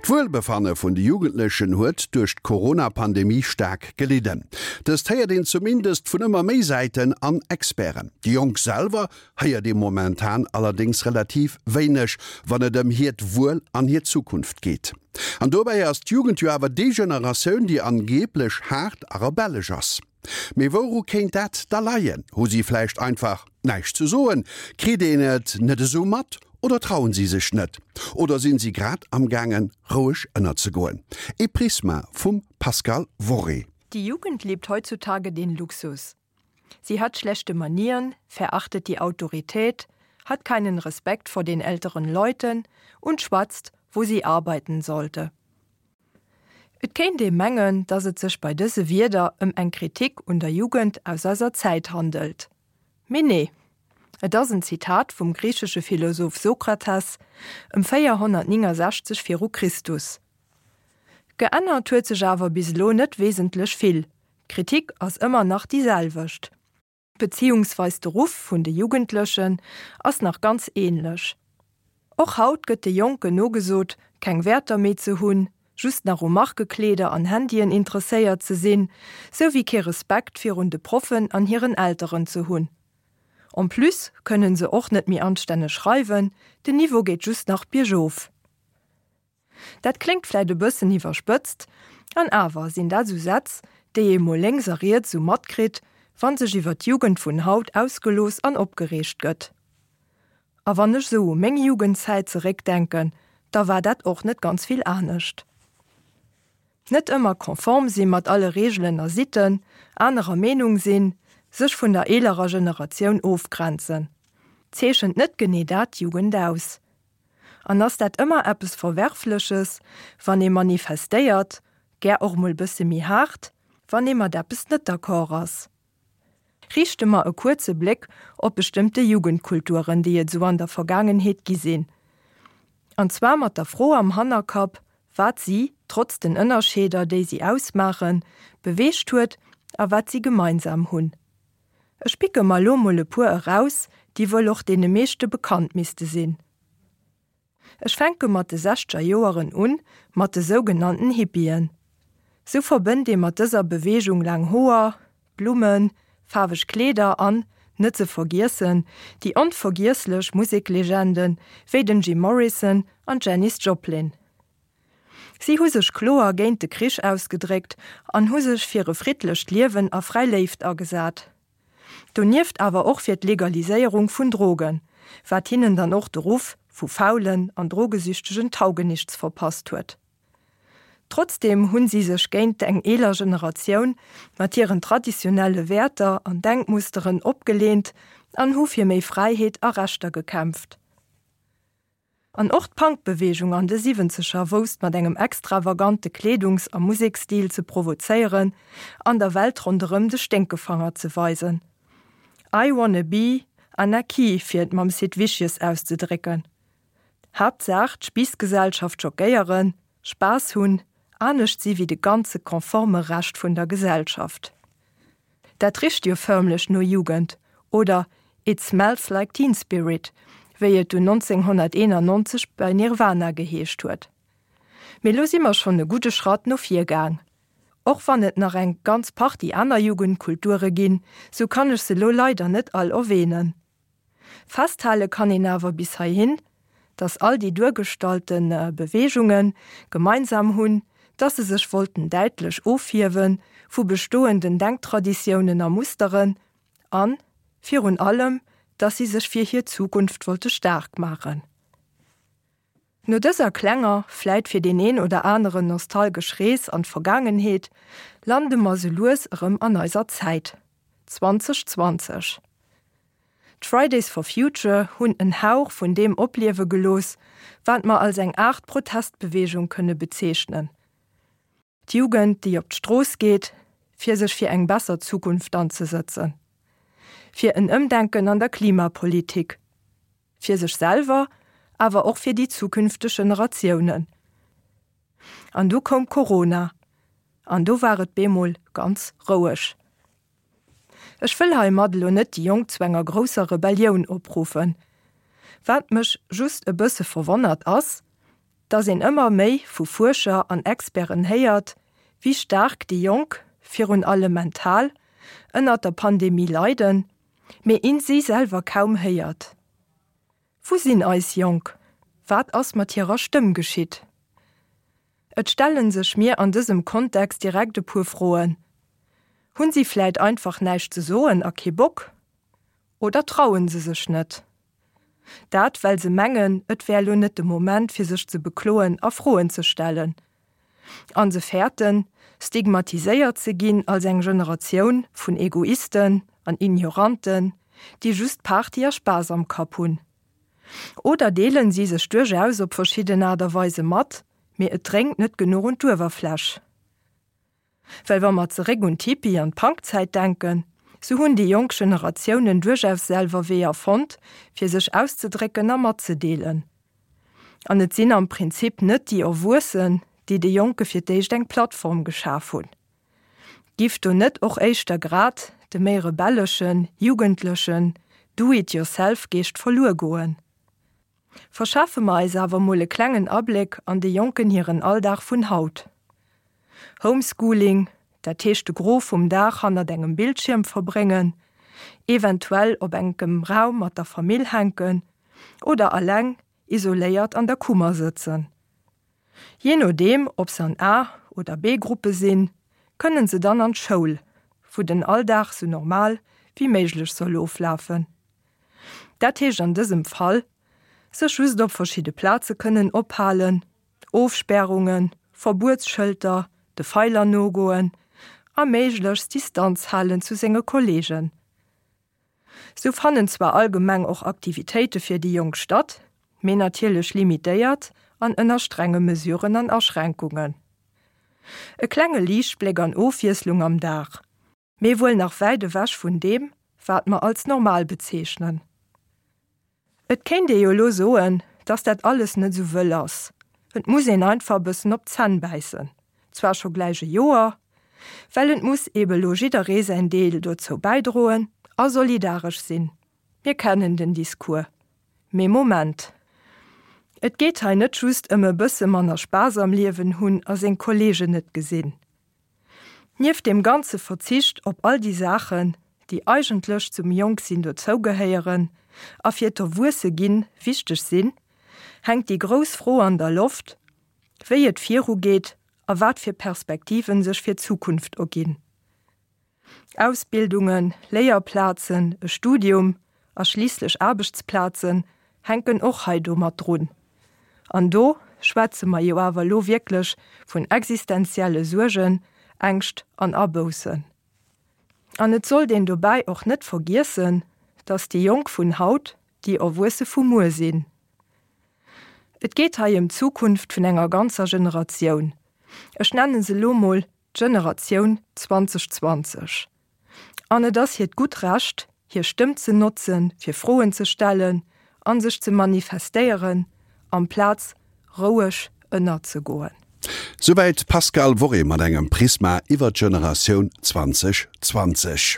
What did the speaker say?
D'Wuelbefanne vun de Jugendlechen huet duerch d'Corona-Pandemie staark gelidden. Dëst héiert een zumindest vun ëmmer méi Säiten an Experten. Déi Jonk selwer héiert ee momentan allerdéngs relativ wéineg, wann et ëm hiert Wuel an hir Zukunft geet. An dobäi ass d'Jugend jo awer déi Generatioun, déi angeeblech haart a rebellesch ass. Mee wouru kéint dat da leien? Hu si vläicht einfach näischt ze soen? Kritt een et net esou mat oder trauen si sech net? Oder sinn si grad am gaangen roueg ënnerzegoen? E Prisma vum Pascal Worré. Die Jugend lebt heutzutage den Luxus. Sie hat schlechte Manieren, verachtet die Autorität, hat keinen Respekt vor den älteren Leuten und schwatzt, wo sie arbeiten sollte. Et kéint ee mengen, datt et sech bei dëse Wierder ëm eng Kritik un der Jugend aus eiser Zäit handelt. Mee nee, et ass en Zitat vum griichesche Philosoph Sokrates ëm 469 viru Christus. Geännert huet sech awer bis elo net wesentlech vill, d'Kritik ass ëmmer nach déi selwecht. Beziehungsweis de Ruff vun de Jugendlechen ass nach ganz ähnlech. Och haut gëtt de Jonken nogesot, keng Wäerter méi ze hunn, just nach u Markekleeder an Handyen interesséiert ze sinn, sou wéi kee Respekt virun de Proffen an hiren Elteren ze hunn. En plus kënnen se och net méi anstänneg schreiwen, den Niveau geet just nach biergof. Dat kléngt vläit e bëssen iwwerspëtzt, an awer sinn dat sou Sätz, déi ee mol lénks a riets sou matkritt, wa sech iwwer d'Jugend vun haut ausgelooss an opgereegt gëtt. A wann ech sou u meng Jugendzäit zeréckdenken, da war dat och net ganz vill anescht. Net ëmmer konform si mat alle Reegelen a Sitten, anerer Meenung sinn, sech vun der eelerer Generatioun ofgrenzen. Zeechent net genee dat d'Jugend aus? An ass dat ëmmer eppes Verwerfleches, wann ee manifestéiert, gär och mol bësse méi haart, wann ee mat eppes net d'accord ass? Riichte mer e kuerze Bléck op bestëmmte Jugendkulturen, déi et sou an der Vergaangenheet gi sinn. An zwar mat der Fro am Hannerkapp, wat si, trotz den Ënnerscheeder, déi si ausmaachen, beweegt huet a wat si gemeinsam hunn. Ech picke mer lo mol e puer eraus, déi wuel och deene meeschte bekannt misste sinn. Ech fänke mat de sechzeger Joeren un, mat de sougenannten Hippien. Sou verbënnt ee mat dëser Beweegung laang Hoer, Blummen, faarweg Kleeder an, net ze vergiessen, déi onvergiesslech Museklegende wéi den Jim Morrison an d'Janis Joplin. Si hu sech kloer géint de Krich ausgedréckt an hu sech fir e friddlecht Liewen a fräi Léift agesat. Donieft awer och fir d'Legaliséierung vun Drogen, wat hinnen dann och de Ruff vu faulen an drogesüchtegen Taugenichts verpasst huet. Trotzdeem hunn si sech géint eng eeler Generatioun mat hiren traditionelle Wäerter an Denkmusteren opgeleent an hu fir méi Fräiheet a Rechter gekämpft. An och d'Punk-Beweegung an de Siwwenzeger wousst mat engem extravagante Kleedungs a Museksstil ze provozéieren an der Welt ronderëm de Sténkefanger ze weisen. I wanna be Anarchy, fir et mam Sid Vicious auszedrécken. Haaptsaach d'Spiissgesellschaft schockéieren, Spaass hunn, anescht si wéi de ganze konforme Rescht vun der Gesellschaft. Dat richt jo förmlech no Jugend, oder It smells like teen spirit, wéi et dunn 1991 bei Nirvana geheescht huet. Mee lo si mer schonn e gudde Schratt no vir gaang. Och wann et nach eng ganz Partie aner Jugendkulture ginn, sou kann ech se lo leider net all erwähnen. Festhale kann een awer bis heihin, datt all déi duergestallte Beweegunge gemeinsam hunn, datt se sech wollten däitlech ofhiewe vu bestoenden Denktraditiounen a Musteren an, virun allem, datt si sech fir hir Zukunft wollte staark maachen. No dëser klenger, vläit fir deen een oder aneren nostalgesch Rees an d'Vergaangenheet, lande mer sou lues erëm an eiser Zäit, 2020. D'Fridays for Future hunn en Hauch vun deem opliewe gelooss, wat mer als eng Aart Protestbeweegung kënne bezeechnen. D'Jugend, déi op d'Strooss geet, fir sech fir eng besser Zukunft anzesëtzen. Fir en Ëmdenken an der Klimapolitik. Fir sech selwer, awer och fir déi zukünfteg Generatiounen. An du koum Corona. An du war et bemol ganz roueg. Ech wëll heimat elo net déi Jonk zu enger grousser Rebellioun opruffen. Wat mech just e bësse verwonnert ass. dass een ëmmer méi vu Fuerscher an Experten héiert, wéi staark déi Jonk, virun allem mental, ënnert der Pandemie leiden, mee een si selwer kaum héiert. Wou sinn eis Jonk? Wat ass mat hirer Stëmm geschitt? Et stellen sech mir an dësem Kontext direkt e puer Froen, Hunn si vläit einfach näischt ze soen a kee Bock? Oder trauen se sech net? Dat well se mengen, et wär lo net de Moment fir sech ze bekloen a Froen ze stellen. An se fäerten, stigmatiséiert ze ginn als eng Generatioun vun Egoisten an Ignoranten, déi just Party a Spaass am Kapp hunn. Oder deelen si sech duerchaus op verschidden Aart a Weise mat, mee et dréngt net genuch un d'Uewerfläch. Well wa mer zeréck un d'Hippie an d'Punkzäit denken, sou hunn déi jonk Generatiounen duerchaus selwer Weeër fonnt, fir sech auszedrécken a matzedeelen. An et sinn am Prinzip net déi Erwuessen, déi de Jonke fir d'éischt eng Plattform geschaf hunn. Giff do net och éischter grad de méi rebelleschen, jugendlechen Do-it-yourself-Geescht verluer goen? Verschafe mer eis awer mol e klengen Abléck an de Jonken hiren Alldag vun haut. Homeschooling, dat heescht de Gros vum Dag hannert engem Bildschierm verbréngen, eventuell op enkem Raum mat der Famill hänken oder alleng isoléiert an der Kummer sëtzen. Jee nodeem ob se an A oder B-Gruppe sinn, kënnen se dann an d'Schoul, wou den Alldag sou normal wéi méiglech soll oflafen. Dat heescht an dësem Fall, sech just op verschidde Plaze kënnen ophalen, Ofspärungen, Verbuetsschëlter, de Feiler nogoen a méiglechst Distanz halen zu senge Kolleegen. Sou fannen zwar allgemeng och Aktivitéite fir déi Jonk statt, mee natierlech limitéiert an ënner strenge Mesuren an Aschränkungen. E klenge Liichtbléck an Ofwiesslung am Dag, mee wuel nach wäit ewech vun deem, wat mer als normal bezeechnen. Et kéint ee jo elo soen, dass dat alles net esou wëll ass, et muss een einfach e bëssen op d'Zänn bäissen, zwar scho gläich e Joer, well et muss eebe elo jidderee säin Deel dozou bäidroen a solidaresch sinn. Mir kennen den Discours. Mee Moment! Et geet hei net just ëm e bësse manner Spaass am Liewen hunn a seng Kolleegen net gesinn. Nieft deem ganze Verzicht op all déi Saachen, déi eigentlech zum Jonksinn dozougehéieren a fir d'Erwuesse-ginn wichteg sinn, hänkt déi grouss Fro an der Loft, wéi et virugeet a wat fir Perspektiven sech fir d'Zukunft erginn. Ausbildungen, Léierplazen, e Studium a schliisslech Aarbechtsplazen hänken och hei do mat drun. An do schwätze mer jo awer elo wierklech vun existenzielle Suergen, Ängscht an Aboussen. An et sollt een dobäi och net vergiessen, dass déi Jonk vun haut déi Erwuesse vu muer sinn. Et geet hei ëm d'Zukunft vun enger ganzer Generatioun, ech nenne se elo mol d'Generatioun 2020. An et ass hiert gutt Recht, hir Stëmm ze notzen, fir Froen ze stellen a sech ze manifestéieren, amplaz roueg ënnerzegoen. Souwäit d'Pascale Worré mat engem Prisma iwwer d'Generatioun 2020.